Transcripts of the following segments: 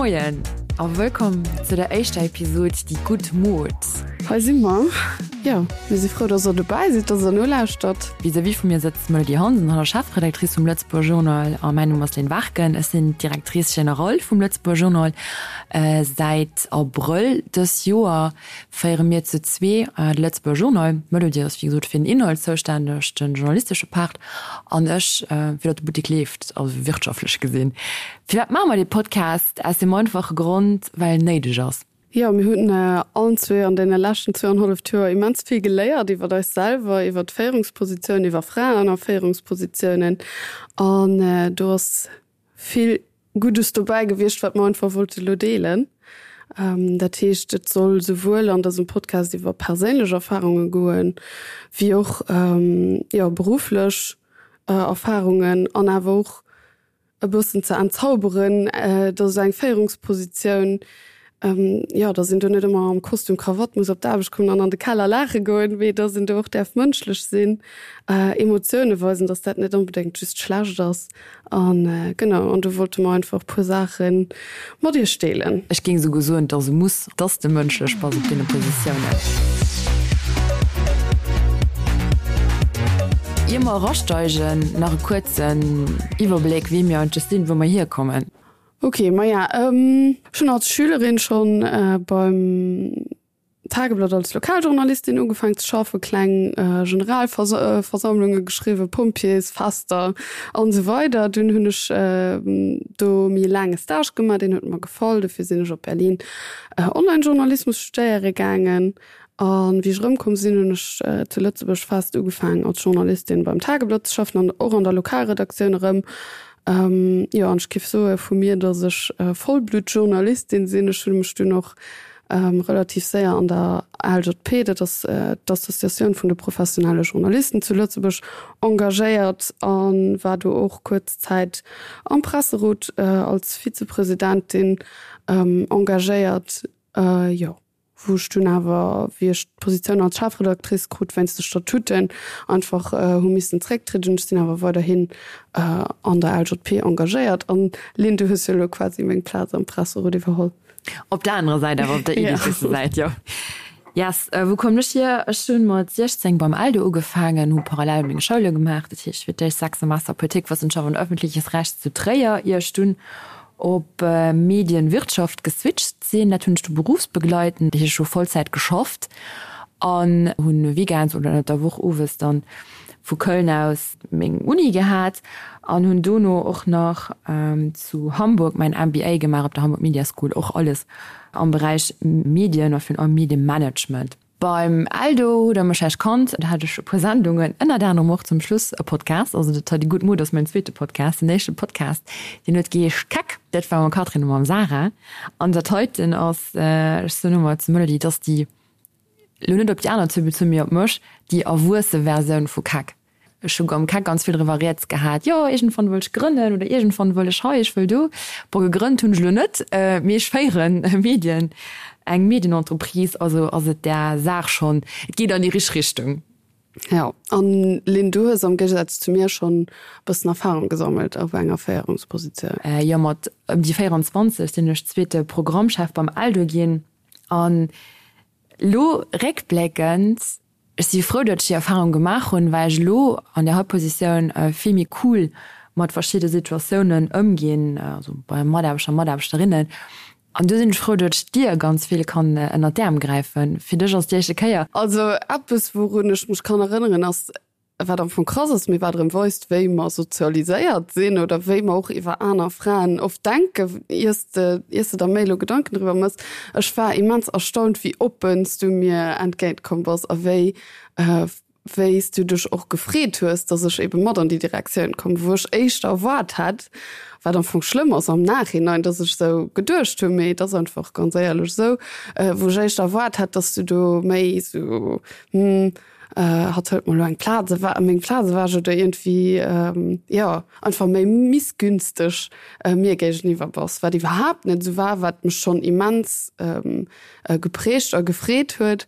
Moien a wëllkomm zu der éischter Episod Déi gutt Mod. Hei si mer. Jo, mir si frou, dass der dobäi sidd, dass der nolauschtert. Vis-à-vis vu mir sëtzt d'Melody Hansen, hatt ass Chefredactrice vum Lëtzebuerger Journal a mäin Numm ass Lynn Warken. Ech sinn d'Directrice générale vum Lëtzebuerger Journal. Säit Abrëll dës Joer féiere mir zu zwee de Lëtzebuerger Journal. D'Melody ass wéi gesot fir den Inhalt zoustänneg, de journalistesche Part, an ech fir datt de Buttek leeft, also wirtschaftlech gesinn. Firwat maache mer dee Podcast? Aus deem einfache Grond, well en néideg ass. Jo, mir hunn allen zwee an deene leschten zwouanenhalleft Joer immens vill geléiert iwwer eis selwer, iwwer d'Féierungspositiounen, iwwer Fraen a Féierungspositiounen. An do ass vill Guddes dobäi gewiescht, wat mer einfach wollte lo deelen. Dat heescht, et soll souwuel an dësem Podcast iwwer perséinlech Erfarunge goen, wéi och, jo, berufflech Erfarungen an awer och e bëssen ze entzauberen, dass esou eng Féierungspositioun, jo, dass een do net ëmmer am Kostüm Krawatt muss op d'Aarbecht kommen an an de Keller laache goen, mee dass een do och däerf mënschlech sinn, Emotioune weisen, dass dat net onbedéngt just schlecht ass. An genau, an do wollte mer einfach e puer Saache mat iech deelen. Ech géing esouguer soen, et ass e Muss, dass de mënschlech bass op deene Positiounen. Ier mer erasteigen, nach e kuerzen Iwwerbléck, wie mir eigentlech sinn, wou mer hierkommen. Ok, maja, ech hunn als Schülerin schonn beim Tageblatt als Lokaljournalistin ugefaangen ze schaffen, kleng Generalversammlunge geschriwwen, Pompjeesfester an esou weider. Dunn hunn ech do méi e laange Stage gemaach, deen huet mer gefall, dofir sinn ech op Berlin Online-Journalismus studéiere gaangen. A wéi ech erëmkomm sinn, hunn ech zu Lëtzebuerg fest ugefaangen als Journalistin beim Tageblatt ze schaffen an och an der Lokalredaktioun erëm. Jo, an ech géif soe vu mir, datt ech Vollbluttjournalistin sinn. Ech hunn mech dunn och relativ séier an der ALJP, dat ass d'Associatioun vun de professionelle Journalisten zu Lëtzebuerg, engagéiert a war do och kuerz Zäit am Presserot als Vizepresidentin engagéiert. Jo, wou ech dunn awer, wéi ech d'Positioun als Chefredactrice krut, wéinst de Statuten einfach hu missen zrécktrieden. Ech sinn awer weiderhin an der ALJP engagéiert. An Lynn, du hues jo elo quasi meng Plaz am Presserot iwwerholl. Op der anerer Säit awer, op der Editeurssäit, jo. Yes, wou kommen ech hier? Ech hunn mat 16 beim Eldo ugefaangen, hu parallel meng Schoule gemaach, dat heescht fir d'éischt 6 Semester Politikwëssenschaft an öffentliches Recht zu Tréier, ier ech dunn op Medienwirtschaft geswitcht sinn. Dat hunn ech du berufsbegleitend, dat heescht ech hu Vollzäit geschafft an hunn weekends oder ënnert der Woch owes dann vu Köln aus meng Uni gehat an hunn dono och nach zu Hamburg mäin MBA gemaach op der Hamburg Media School, och alles am Beräich Medien a virun allem Medienmanagement. Beim Eldo hutt der mech vläicht kannt, do hat ech e puer Sendungen, ënnert anerem och zum Schluss e Podcast, also dat hei, déi gutt Mod ass mäin zweete Podcast. Den éischte Podcast, deen huet geheescht Keck, dat war mam Catherine a mam Sarah an dat heiten ass, ech soen ëmmer zum Melody, et ass déi Lo net op déi aner zwou bezunn, mee op mech, déi erwuesse Versioun vu Keck. Ech hu am Keck ganz vill driwwer rieds gehat, jo iergendwann wëll ech grënnen oder iergendwann wëll ech hei, ech wëll do. Bon, gegrënnt hunn ech elo net, mee ech féieren e Medien, eng Medienentreprise, also ass et där Saach schonn, et geet an déi richteg Richtung. Jo, an Lynn, du hues am Géigesaz zu mir schonn e bëssen Erfahrung gesammelt op enger Féierungspositioun. Jo, mat ëm déi 24 sinn ech zweete Programmchef beim Eldo ginn. An elo réckbléckend, ech si frou, datt ech déi Erfahrung gemaach hunn, well ech elo an där hei Positioun vill méi cool mat verschidde Situatiounen ëmginn, also bei Mataarbechter, Mataarbechterinnen. An do sinn ech frou, datt ech dir ganz vill kann ënnert d'Äerm gräifen. Fir dech ass déi éischte Kéier. Also eppes, wourun ech mech kann erënneren, ass, wat am Fong krass ass, mee wat erëm weist, wéi mer sozialiséiert sinn oder wéi mer och iwwer aner Fraen oft denken, iers de, iers de der méi elo Gedanken driwwer méchs. Ech war immens erstaunt, wéi oppen s du mir entgéint komm bass a wéi, wéi s du dech och gefreet hues, dass ech ebe mat an déi Direktioun komm, wou ech éischter erwaart hätt, wat am Fong schlëmm ass am Nachhinein, dass ech esou geduecht hunn, mee et ass einfach ganz éierlech esou, wou ech éischter erwaart hätt, dass du do méi esou, hm, Hatt hëlt mer elo eng Plaz ewech, meng Plaz ewech oder iergendwéi, jo, einfach méi missgünstig mir géigeniwwer bass, wat iwwerhaapt net esou war, wat mech schonn immens geprägt a gefreet huet.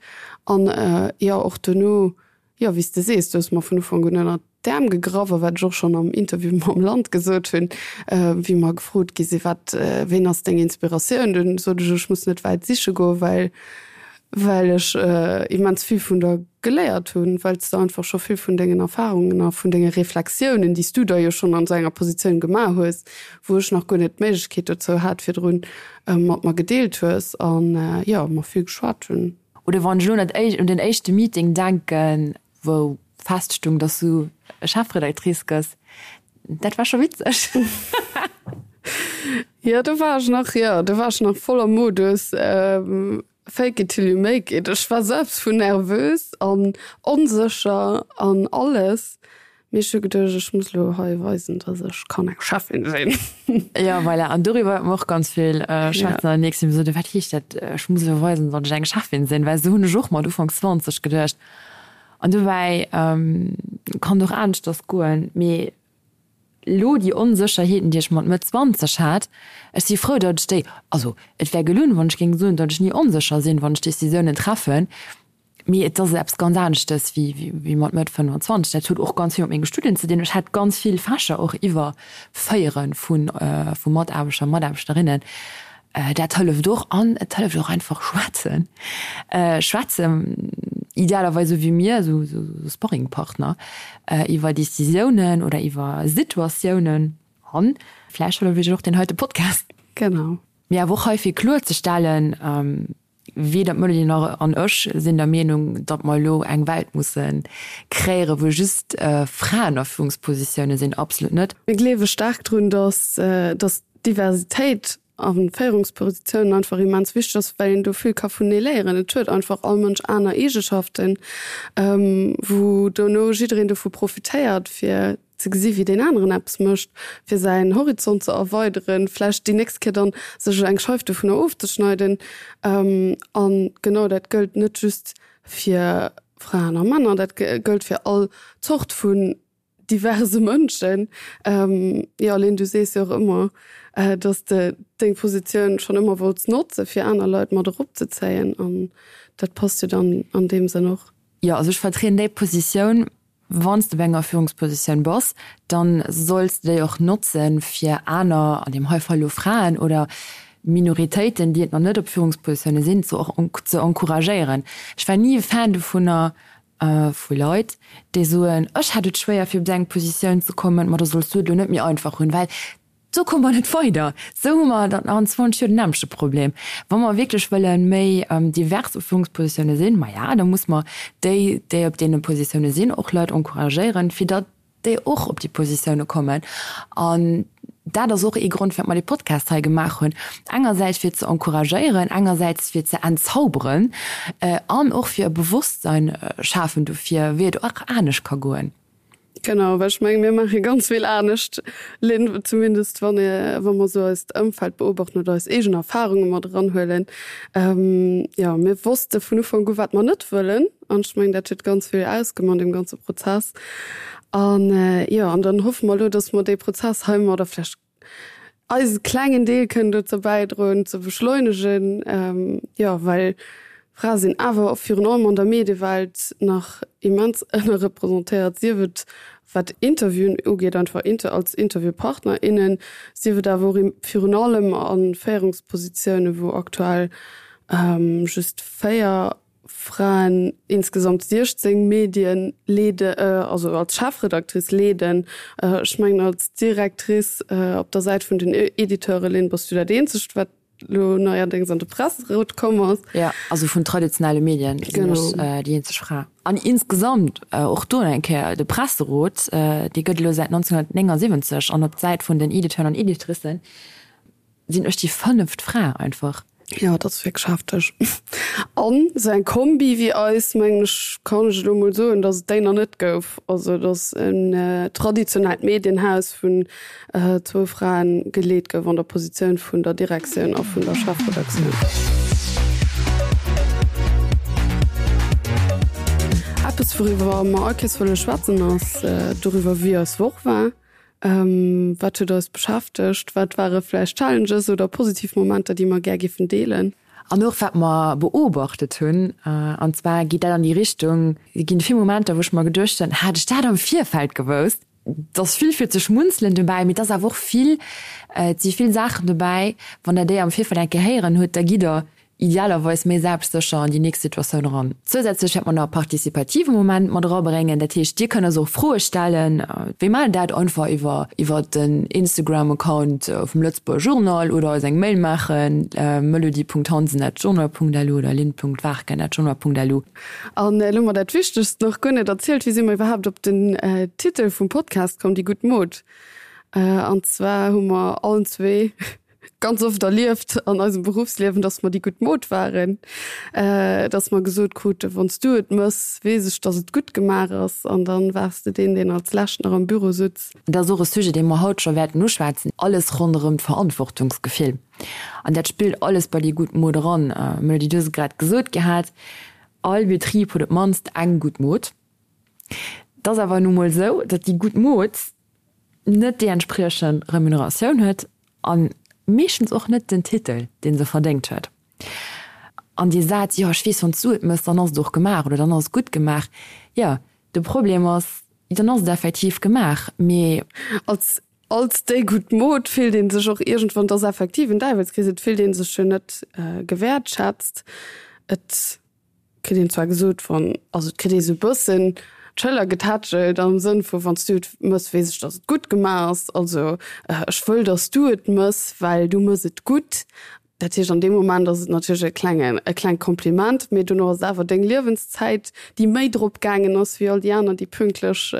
An jo, och dono, jo, wéi s de sees, du hues mer vun Ufank un ënnert. d'Äerm gegraff a wat ech och schonn am Interview mam Land gesot hunn, wéi mer gefrot gi sinn, wat, ween ass deng Inspiratioun, dunn sot ech, ech muss net wäit siche goen, well well ech immens vill vun der geléiert hunn, well s de einfach scho vill vun dengen Erfarungen a vun denge Reflexiounen, déi s du da jo schonn an esou enger Positioun gemaach hues, wou ech nach guer net d'Méiglechkeet dozou hat virdrun, mat mer gedeelt hues an, jo, mer vill geschwat hunn. Oder wann ech elo un den éischte Meeting denken, wou feststung, dass du Chefredactrice gëss, dat war scho witzeg. Jo, do war ech nach, jo, do war ech nach voller Modus fake it till you make it. Ech war selbst vun nervös an onsécher an alles. Mee ech hu geduecht, ech muss elo hei weisen, dass ech kann eng Cheffin sinn. Jo, voilà. An doriwwer wäerte mer och ganz vill schwätzen an der nächsten Episode. Wat heescht dat, ech muss elo weisen, datt ech eng Cheffin sinn? Well esou hunn ech och mat Ufank 20 geduecht. An dobäi kann et och aneschters goen. Mee elo déi Onsécherheeten, déi ech mat Mëtt 20 hat, ech si frou, datt ech déi, also et wär gelunn, wann ech géing soen, datt ech ni onsécher sinn, wann ech Decisiounen treffen. Mee et ass eppes ganz aneschtes wéi mat Mëtt 25. Dat huet och ganz vill mat menge Studien ze dinn. Ech hat ganz vill Fächer och iwwer Féiere vu Mataarbechter a Mataarbechterinnen. Dat hëlleft och. An et hëlleft och einfach schwätzen. Schwätzen, idealerweis esou wéi mir, esou Sparringpartner, iwwer Decisiounen oder iwwer Situatiounen. An vläicht hëlleft iech och deen heite Podcast. Genau. Mee awer och hei fir kloerzestellen, Weder d'Melanie nach an ech sinn der Meenung, datt mer elo eng Welt musse kreéieren, wou just Fraen a Führungspositioune sinn. Absolut net. Mir gleewe staark drun, datt datt Diversitéit a Féierungspositiounen einfach immens wichteg ass, well een do vill ka vunenee léieren. Et huet einfach all Mënsch aner Eegeschaften, wou dono jiddereen dovu profitéiert, fir ze gesi wéi deen aneren eppes mécht, fir säin Horizont ze erweideren, vläicht déi nächst Kéier dann sech eng Scheif dovunner ofzeschneiden. A genau dat gëllt net just fir Fraen a Männer, dat gëllt fir all Zort vun diverse Mënschen. Jo, Lynn, du sees jo och ëmmer, dass de deng Positioun schonn ëmmer wollts notze fir aner Leit mat eropzezéien an dat passt jo dann an deem Sënn och. Jo, also ech vertrieden déi Positioun, Wann s de op enger Führungspositioun bass, dann solls de déi och notzen, fir aner, an deem hei Fall elo Fraen oder Minoritéiten, déi et nach net op Führungspositioune sinn, ze ze encouragéieren. Ech war ni e Fan dovunner, vu Leit, déi soen, ech hat et schwéier fir op esou eng Positioun ze kommen, ma da solls du et elo net méi einfach hunn, well Sou komme mer net weider. Sou hu mer dann an 20 Joer den nämmlechte Problem. Wa mer wierklech wëlle méi divers u Führungspositioune sinn, maja, da muss mer déi, déi op deene Positioune sinn, och Leit encouragéieren, fir datt déi och op déi Positioune kommen. An dat ass och ee Grond, firwat mer dee Podcast hei gemaach hunn. Engersäits fir ze encouragéieren, engersäits fir ze entzauberen an och fir e Bewosstsein schafen dofir, wéi et och anescht ka goen. Genau, well ech menge mir maache ganz vill anescht, Lynn, zumindest wann ee wa mer esou eist Ëmfeld beobachten oder eis eegen Erfarunge mat eranhuelen. Jo, mir wosste vun Ufank u wat mer net wëllen an ech mengen dat huet ganz vill ausgemaach an deem ganze Prozess. An jo, an dann hoffe mer elo, datt mer dee Prozess heimadder vläicht eise klengen Deel kënnen dozou bäidroen ze beschleunegen, jo well Frae sinn awer och virun allem an der Mediewelt nach immens ënnerrepresentéiert, sief et wat Interviewen ugeet, einfach als Interviewpartner, innen, sief et awer och virun allem a Féierungspositiounen, wou aktuell just 4 Fraen insgesamt 16 Medien leede, also als Chefredactrice leeden. Ech mengen als Directrice op der Säit vun den Editeure, Lynn, bass du dat eenzegt, wat elo neierdéngs an de Presserot komm ass. Jo, also vun traditionelle Medien sinn ech déi eenzeg Fra. An insgesamt och do nach eng Kéier, de Presserot, dee gëtt elo säit 1979 an op d'Säit vun den Editeuren an Editricen Sinn ech déi fënneft Fra einfach. Jo, dat ass wierklech hefteg. An esou eng Kombi wéi eis, mengen ech, kann ech elo mol soen, datt et déi nach net gouf. Also datt en traditionellt Medienhaus vun zwou Fraen geleet gouf an der Positioun vun der Direktioun a vun der Chefredaktioun. Eppes wouriwwer mer all Kees wëlle schwätzen ass doriwwer wéi eis Woch war. Wat huet eis beschäftegt? Wat ware vläicht Challenges oder positiv Momenter, déi mer gär giffen deelen? An och wat mer beobachtet hunn, an zwar geet dat an déi Richtung, et ginn vill Momenter, wou ech mer geduecht hunn, hätt ech dat am Virfeld gewousst. Et ass vill fir ze schmunzelen dobäi, mee et ass awer och vill, et si vill Saachen dobäi, wann Der déi am Virfeld eng Kéier héieren hutt, da gitt Der idealerweis méi selbstsécher an déi nächst Situatioun eran. Zousätzlech wäerte mer nach e partizipative Moment mat erabréngen. Dat heescht, Dir kënnt eis och Froe stellen. Wéi maachen dat? Einfach iwwer iwwer den Instagram-Account vum Lëtzebuerger Journal oder eis eng Mail maachen, melody.hansen@journal.lu oder lynn.warken@journal.lu. An elo hu mer dat Wichtegst nach guer net erzielt, Wéi si mer iwwerhaapt op den Titel vum Podcast komm, Déi gutt Mod? An zwar hu mer allen zwee ganz oft erlieft an eisem Beruffsliewen, dass mer déi gutt Mod waren, dass mer gesot kruten, Wann s du et mëss, weess ech, dass et gutt gemaach ass. An dann waars de deen, deen als lescht nach am Büro sutz. Dat ass och e Sujet, dee mer haut scho wäerten uschwätzen, alles ronderëm d'Verantwortungsgefill. An dat spillt alles bei déi gutt Mod eran. Melody, du hues et grad gesot gehat, all Betrib huet op d'mannst eng gutt Mod. Et ass awer nu mol esou, datt déi gutt Mod net déi entspriechend Remuneratioun huet a meeschtens och net den Titel, dee se verdéngt huet. An dee Saz, jo ech weess, wann s du et mëss, dann ass et och gemaach oder dann ass et gutt gemaach, jo, de Problem ass, dann ass et effektiv gemaach, mee. Als Als déi gutt Mod fillt ee sech och iergendwann, et ass effektiv en Däiwelskrees, et fillt ee sech jo net gewäertschätzt. Et kritt een zwar gesot, wann, also et kritt ee sou e bëssen d'Schëller getätschelt am Sënn vu wann s du et mëss, weess ech, datt et gutt gemaach ass. Also ech wëll, datt s du et mëss, well du mëss et gutt. Dat heescht, an deem Moment ass et natierlech e klengen, e klengt Kompliment, mee dono ass et awer deng Liewenszäit, déi méi drop gaangen ass wéi all déi aner, déi pünktlech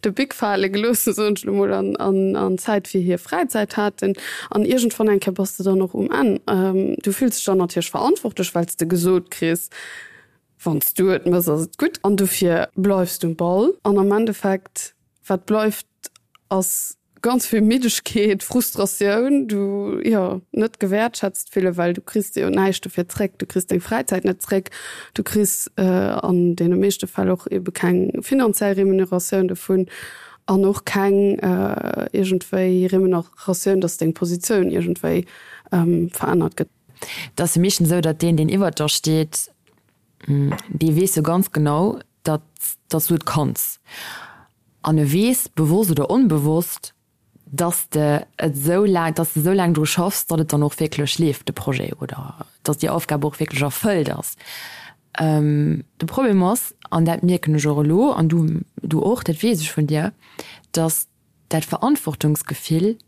de Bic fale gelooss hunn, soen ech elo mol, an, an, an Zäit fir hir Fräizäit haten. An iergendwann eng Kéier bass de dann och um Enn. Du fills dech dann natierlech verantwortlech, well s de gesot kriss, Wann s du et mëss, ass et gutt. An dofir bleifs du um Ball. An am Endeffekt, wat bleift, ass ganz vill Middegkeet, Frustratioun, du, jo, net gewäertschätzt fillen, well du kriss jo näischt dofir zréck. Du kriss deng Fräizäit net zréck, du kriss an deene meeschte Fäll och ebe keng finanziell Remuneratioun dovun an och keng iergendwéi Remuneratioun, dass deng Positioun iergendwéi verännert gëtt. Et ass jo meeschtens esou, datt deen, deen iwwert der steet, dee weess jo ganz genau, datt datt s du et kanns. An e weess, bewosst oder onbewosst, datt s de et esou laang, datt s de esou laang dru schaffs, datt et dann och wierklech leeft, de Projet, oder datt déi Aufgab och wierklech erfëllt ass. De Problem ass, an dat mierken ech och elo, an du, du och, dat weess ech vun dir, datt dat Verantwortungsgefill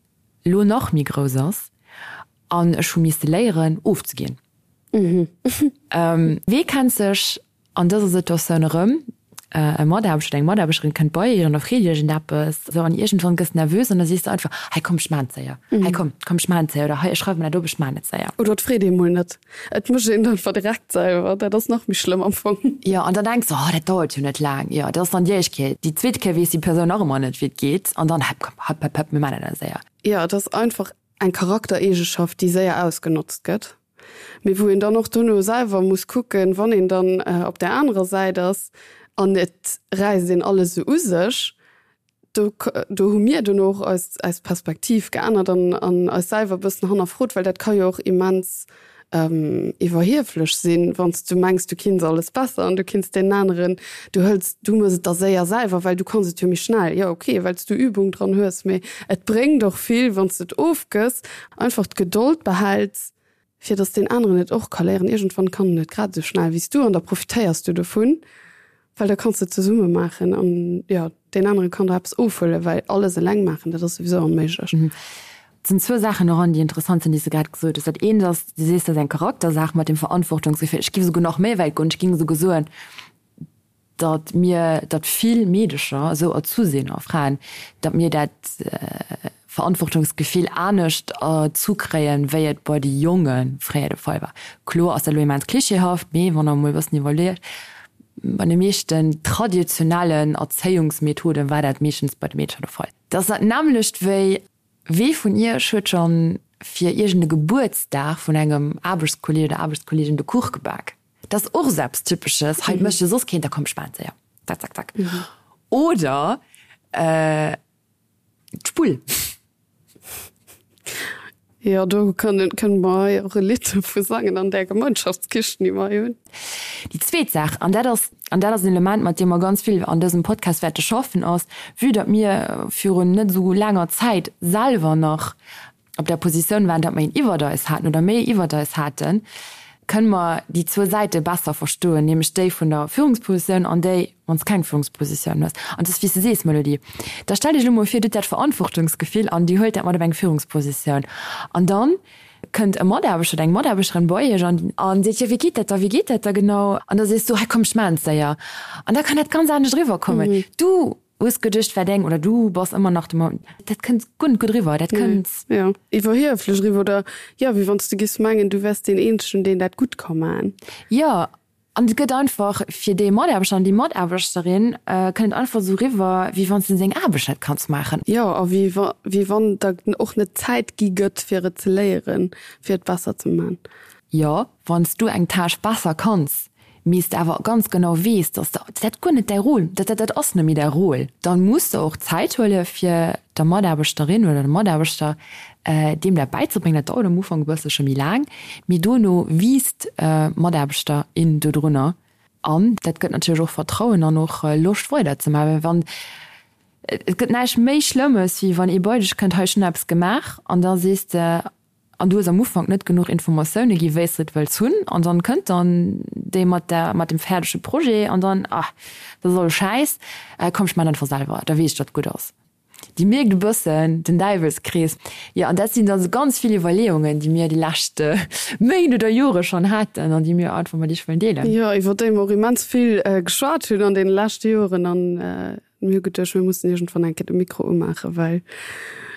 elo nach méi grouss ass an ech hu misste léieren ofzeginn. Wee kennt sech an dëser Situatioun erëm? E Mataarbechter oder eng Mataarbechterin kënnt bei iech an da freet iergendeppes esou an iergendwann gëss nervös an da sees de einfach, hei komm ech maan et séier, hei komm, komm ech maan et séier oder hei ech schreiwe mer dat op, ech maan et séier. Oder et freet ee mol net, et mécht een et einfach direkt selwer, dat ass nach méi schlëmm am Fong. Jo, an dann denks de, oh dat dauert jo net laang, jo dat ass dann déi éischt Kéier, déi zweet Kéier weess déi Persoun nach ëmmer net wéi et geet an dann, hopp komm, hopp hopp hopp mir maan dat séier. Jo, et ass einfach eng Charaktereegeschaft, déi séier ausgenotzt gëtt, mee wou een dann och dono selwer muss kucken, wann een dann op där anerer Säit ass an et räisst een alles esou u sech, do do hu mir dono och eis eis Perspektiv geännert an an eis selwer e bëssen hannerfrot, well dat ka jo och immens iwwerhieflech sinn, wann s du mengs, du kinns alles besser an du kinns deenen aneren, du hëls, du mëss et da séier selwer, well du kanns et jo méi schnell. Jo, ok, well s du Übung dran hues, mee et bréngt och vill, wann s de et ofgëss, einfach d'Gedold behäls, fir datt deen aneren et och ka léieren. Iergendwann kann en et grad esou schnell wéi s du an da profitéiers du dovun. Well da kanns de et zesumme maachen an jo, deen anere kann der eppes ofhuelen, well alles eleng maachen, dat ass souwisou onméiglech. Et sinn zwou Saachen doran, déi interessant sinn, déi s de grad gesot hues. Dat eent ass, du sees, dat ass eng Charaktersaach mat dem Verantwortungsgefill. Ech géif esouguer nach méi wäit goen, ech géing esouguer soen, datt mir, datt vill Meedecher esou erzu sinn, a Fraen, datt mir dat Verantwortungsgefill anescht erzu kréien, wéi et bei de Jonge fréier de Fall war. Kloer ass dat elo immens klischeehaft, mee wann der emol e bëssen iwwerleet, bei de meeschten traditionellen Erzéiungsmethoden war dat meeschtens bei de Meedercher de Fall. Dat ass dat nämmlecht wéi, Wee vun iech huet schonn fir iergend e Gebuertsdag vun engem Aarbechtskolleeg oder Aarbechtskolleegin de Kuch gebak? Dat ass och esou eppes Typesches, hei mécht jo soss keen, da komm ech maachen et séier, zack, zack, zack. Oder. D'Spull. Jo, do kënne mer hei och e Lidd dovu sangen an där Gemeinschaftskichen, déi mer hei hunn. Déi zweet Saach, an dat ass, an dat ass en Element, mat deem mer ganz vill an dësem Podcast wäerte schaffen, ass, vue datt mir virun net esou laanger Zäit selwer nach op der Positioun waren, datt mer een iwwert eis haten oder méi iwwert eis haten, kënne mer déi zwou Säite besser verstoen, nämlech déi vun der Führungspositioun an déi, wann s keng Führungspositioun hues. An et ass wéi s de sees, Melody, da stell dech elo mol vir, du hutt dat Verantwortungsgefill an dir huelt dat mat op eng Führungspositioun an dann kënnt e Mataarbechter oder eng Mataarbechterin bei iech an an seet, jo wéi geet dat da, wéi geet dat da genau? An da sees du, hei komm ech maachen et séier. An da kann dat ganz anescht eriwwerkommen. Du hues geduecht, war deng oder du bass ëmmer nach de, dat kënnt guer net gutt eriwwer, dat kënnt. Jo, iwwerhieflech eriwwer oder jo, wéi wann s du giffs mengen, du wäers deen eenzegen, deen dat gutt ka maachen. Jo, An et gëtt einfach fir dee Mataarbechter an déi Mataarbechterin, kënnt et einfach esou eriwwer, wéi wann s de seng Aarbecht net kanns maachen. Jo, a wéi wa, wéi wann der och net Zäit gi gëtt, fir et ze léieren, fir et besser ze man. Jo, wann s du eng Tâche besser kanns, mee s de awer ganz genau weess, dass de, dat guer net däi Rôle, dat, dat ass net méi däi Rôle, dann muss de och Zäit huele fir der Mataarbechterin oder dem Mataarbechter deem dat bäizebréngen. Dat dauert am Ufank e bësselche méi laang, mee dono wiisst d'Mataarbechter, in dodrunner. An dat gëtt natierlech och Vertrauen an och Loscht weiderzemaachen. Well wann, et gëtt näischt méi Schlëmmes, wéi wann ee bei dech kënnt, hei ech hunn eppes gemaach, an da sees de, an du hues am Ufank net genuch Informatioune gi wéi s de et wëlls hunn, an dann kënnt dann dee mat der, mat dem fäerdege Projet an dann, ah, dat ass alles Schäiss, komm ech maachen einfach selwer, da weess ech, datt et gutt ass. Dir mierkt e bëssen den Däiwelskrees. Jo, an dat sinn dann esou ganz vill Iwwerleeungen, déi mir déi lescht Méint oder Jore schonn haten an déi mir einfach mat Iech wëllen deelen. Jo, iwwer déi mer och immens vill geschwat hunn an deene leschte Joren. An mir hu geduecht, mir mussen iergendwann eng Kéier de Mikro umaachen, well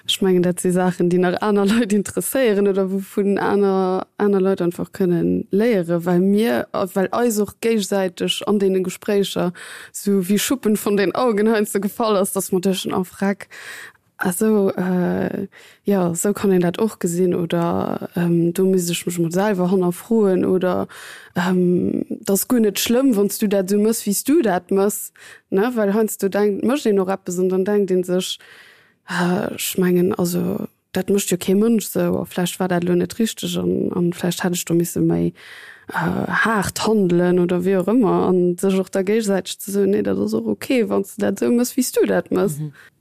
ech mengen, dat si Saachen, déi nach aner Leit interesséieren oder wouvun aner, aner Leit einfach kënnen léieren, well mir, well eis och géigesäiteg an deene Gespréicher sou wéi Schuppen von den Augen heiansdo gefall ass, dass mer duechten, oh freck, ah sou, jo sou kann een dat och gesinn oder do misst ech mech mol selwer hannerfroen oder et ass guer net schlëmm, wann s du dat sou mëss, wéi s du dat mëss, ne, well heiansdo denkt, mécht een och eppes an dann denkt ee sech, ech mengen also Dat mécht jo kee Mënsch esou. A vläicht war dat elo net richteg an, an vläicht hätt ech do misse méi haart handelen oder wéi och ëmmer. An sech och da géigesäiteg ze soen, nee, dat ass och ok, wann s de dat esou mëss, wéi s du dat mëss.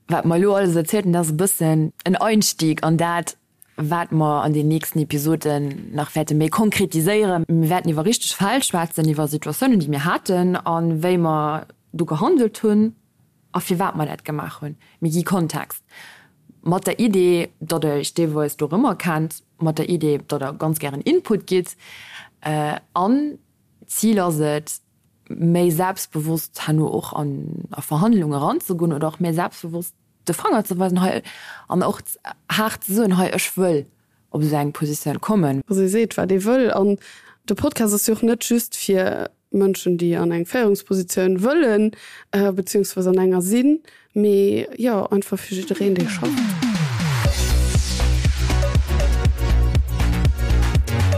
Wat mer elo alles erzielt hunn, dat ass e bëssen en Einstieg an dat, wat mer an den nächsten Episoden nach wäerte méi konkretiséieren. Mir wäerten iwwer richteg Fäll schwätzen, iwwer Situatiounen, déi mir haten a wéi mer do gehandelt hunn. A firwat mer dat gemaach hunn. Mir gi Kontext. Mat der Idee, datt Der Iech deelweis dorëmmer kennt, mat der Idee, datt Der ganz gären Input gitt. An d'Zil ass et, méi selbstbewosst herno och an a Verhandlunge eranzegoen oder och méi selbstbewosst de Fanger ze weisen hei an och haart ze soen, hei ech wëll op esou eng Positioun kommen. Also ee seet, wat ee wëll. An de Podcast ass jo och net just fir Mënschen, déi an eng Féierungspositioun wëllen, beziehungsweise an enger sinn, mee jo, einfach fir jiddereen, dee schafft.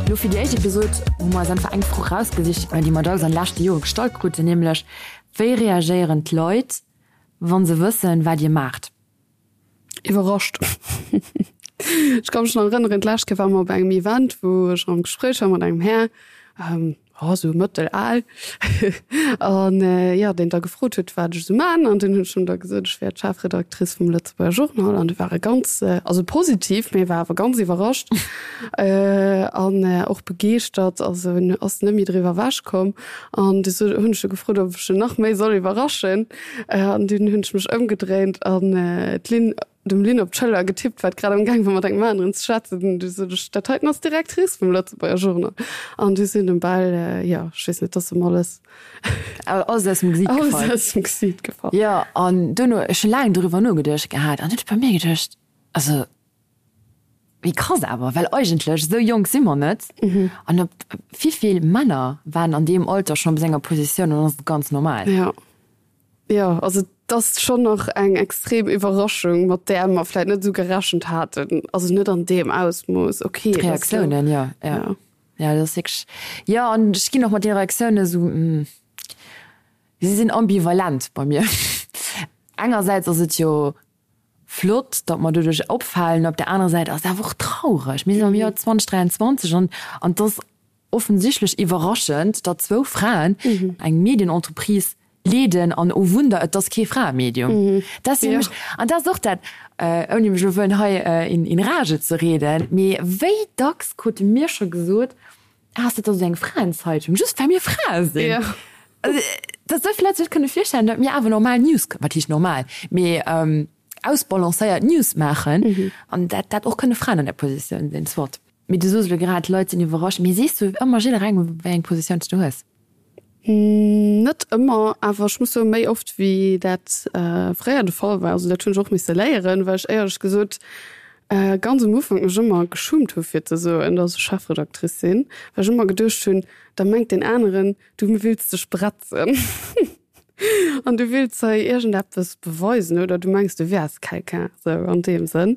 Lo fir déi éischt Episod hu mer eis einfach eng Fro rausgesicht, déi mer dacks an de leschte Jore gestallt kruten, nämlech, Wéi reagéieren d'Leit, wa se wëssen, wat Dir maacht? Iwwerrascht. Ech ka mech nach erënneren, d'lescht Kéier ware mer op engem Event, wou ech am Gespréich war mat engem Här, oh, sou mëttel al, an jo, deen da gefrot huet, wat ech esou man. An dunn hunn ech him da gesot, ech wär d'Chefredactrice vum Lëtzebuerger Journal. An du war e ganz, also positiv, mee e war awer ganz iwwerrascht an och begeeschtert. Also en ass net méi driwwer ewechkomm. An du hunn ech e gefrot, ob ech en nach méi soll iwwerraschen. An dunn hunn ech mech ëmgedréint an d'Lynn, dem Lynn op d'Schëller getippt, wat grad am Gaang war mat engem aneren ze schwätzen. An du sot ech, dat heiten ass d'Directrice vum Lëtzebuerger Journal. An du sinn em bal, jo, ech weess net, dass em alles, Alles aus dem Gesiit gefall. Alles aus dem Gesiit gefall. Jo, an duerno, ech hu laang doriwwer nogeduecht gehat an hunn ech bei mir geduecht, also Wéi krass awer, well eigentlech esou jonk si mer net. An op wivill Männer waren an deem Alter schonn op esou enger Positioun an ass et ganz normal. Jo, jo, also et ass schonn nach eng extrem Iwwerraschung, mat där mer vläit net esou gerechent haten, also net an deem Ausmooss. Okay, D'Reaktiounen, jo, jo, jo, dat ass wierklech, jo, an ech ginn och mat deene Reaktiounen esou, si sinn ambivalent bei mir. Engersäits ass et jo. flott, datt mer doduerch opfalen, op der anerer Säit ass et awer och traureg. Mir sinn am Joer 2023 an an et ass offensichtlech iwwerraschend, datt zwou Fraen eng Medienentreprise leeden an, oh Wunder, et ass kee Fraemedium. Dat ass fir mech, an dat ass och dat, ouni mech elo wëllen hei in rage ze reden, mee wéi dacks krute mir scho gesot, Ah, ass dat da sou eng Fraenzeitung, just well mir Frae sinn? Ja. Also, datt esou vill Leit sech kënne virstellen, datt mir awer normal News, wat heescht normal, mee ausbalancéiert News maachen an dat dat och kënne Fraen an där Positioun sinn, soit. Mee du soos elo grad, d'Leit sinn iwwerrascht. Mee sees du ëmmer jidderengem, wéi eng Positioun s du hues? Net ëmmer, awer ech muss soen, méi oft wéi dat fréier de Fall war. Also dat hunn ech och misse léieren, well ech éierlech gesot ganz um Ufank mech ëmmer geschummt hu fir ze soen, datt ech Chefredactrice sinn, well ech ëmmer geduecht hunn, da mengt deen aneren, du wills dech bretzen. An du wills hei iergendeppes beweisen oder du mengs du wäers quelqu'un, sou an deem Sënn.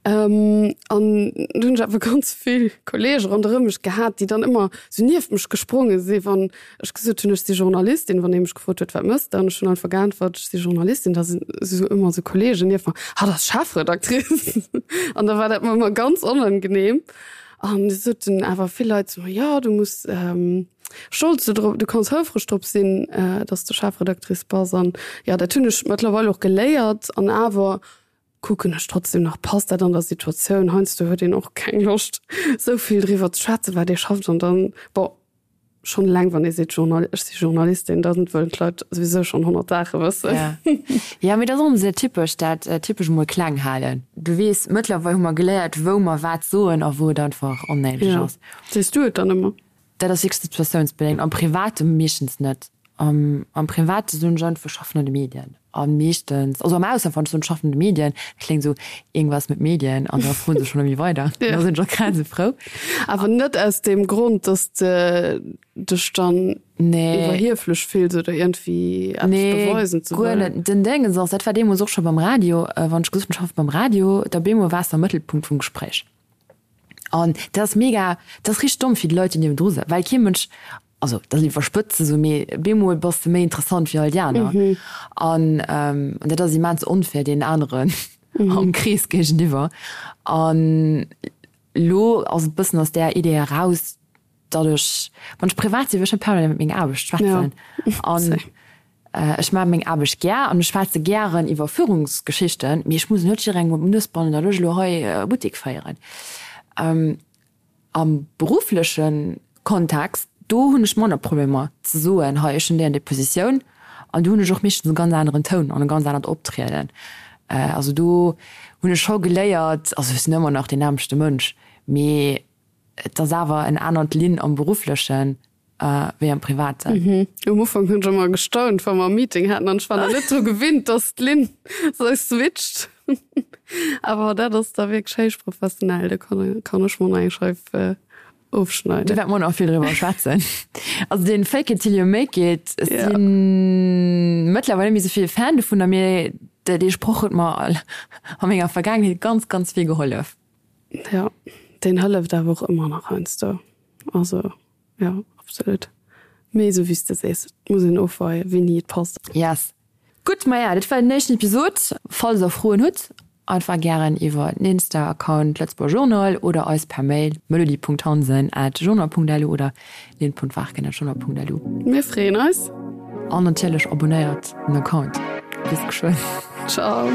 An du hunn ech awer ganz vill Kollege ronderëm mech gehat, déi dann ëmmer sou nieft mech gespronge si wann ech gesot hunn, ech si Journalistin, wann ee mech gefrot huet, wat mëss de? An ech hunn einfach geäntwert, ech si Journalistin. Da sinn sou ëmmer sou Kollegen nieft mer, hatt ass Chefredactrice. An da war dat mer ëmmer ganz onangenehm. An du soten awer vill Leit zu mer, jo du muss stolz do drop, du kanns houfreg drop sinn, dass de Chefredactrice bass. An jo, dat hunn ech mëttlerweil och geléiert. An awer kucken ech trotzdem nach, passt dat an der Situatioun? Heiansdo huet een och keng Loscht, esou vill driwwer ze schwätzen, wat ee schafft. An dann, bon, schonn eleng wann ee seet, Journal, ech si Journalistin, da wëllen d'Leit souwisou schonn 100 Saache wëssen. Ja, ja, mee dat ass och ëmmer esou typesch, dat typesch emol kleng halen. Du weess, mëttlerweil hu mer geléiert, wou mer wat soen a wou et einfach onnéideg ass. Sees du et dann ëmmer? Dat ass wierklech situatiounsbedéngt. Am Private meeschtens net. Am am Private soen ech einfach, ech schaffen an de Medien. A meeschtens, also am Ausland, wann ech soen, ech schaffen an de Medien, dat kléngt esou, irgendwas mit Medien, an da froen se schonn ëmmer weider. Ja. Da sinn ech och grad esou frou. Awer net aus deem Grond, dass de dech dann Nee. iwwerhieflech fills oder iergendwéi eppes Nee, beweisen ze guer wëllen. net. Den Déngens ass, dat war deemools och scho beim Radio, wann ech gesot hunn, ech schaffe beim Radio, da bemol waars de am Mëttelpunkt vum Gespréich. An dat ass mega, dat ass richteg domm fir déi Leit, déi niewendru sëtzen, well kee Mënsch, also dat ass iwwerspëtzt ze soen, mee bemol bass de méi interessant wéi all déi aner. An an dat ass immens onfair deenen aneren am Krees géigeniwwer. An elo ass et bëssen aus där Idee eraus, datt ech, wann ech privat sinn, wëll ech net permanent iwwer meng Aarbecht schwätzen. An ech maache meng Aarbecht gär an ech schwätze gären iwwer Führungsgeschichten, mee ech muss net jidderengem op d'Nues bannen, datt ech elo hei e Buttek féieren. Am beruffleche Kontext, do hunn ech manner Problemer ze soen, hei ech hunn déi an déi Positioun an do hunn ech och meeschtens e ganz aneren Toun an e ganz anert Optrieden. Also do hunn ech scho geléiert, also ech sinn ëmmer nach deen nämmlechte Mënsch, mee et ass awer en anert Linn am Berufflechen wéi am Privaten. Um Ufank hunn ech ëmmer gestaunt, wa mer e Meeting haten an ech war nach net dru gewinnt, dass d'Lynn sou switcht. Awer dat ass da wierklech héich professionell, do kann kann ech mer nach eng Scheif ofschneiden. Do wäerte mer nach vill driwwer schwätzen. Also dee Fake it till you make it, ech Ja. si mëttlerweil net méi sou vill Fan dovunner, mee dee Sproch huet mer a menger Vergaangenheet ganz, ganz vill gehollef. Ja, deen hëlleft awer och ëmmer nach heiansdo. Also jo, absolut. Mee esou wéi s de sees, et muss een ofweien, wéini et passt. Yes. Gutt, maja, dat war den éischten Episod. Falls der Froen hutt, einfach gären iwwer den Insta-Account Lëtzebuerger Journal oder eis per Mail melody.hansen@journal.lu oder lynn.warken@journal.lu. Mir freeën eis. An natierlech abonnéiert den Account. Bis geschwënn. Ciao.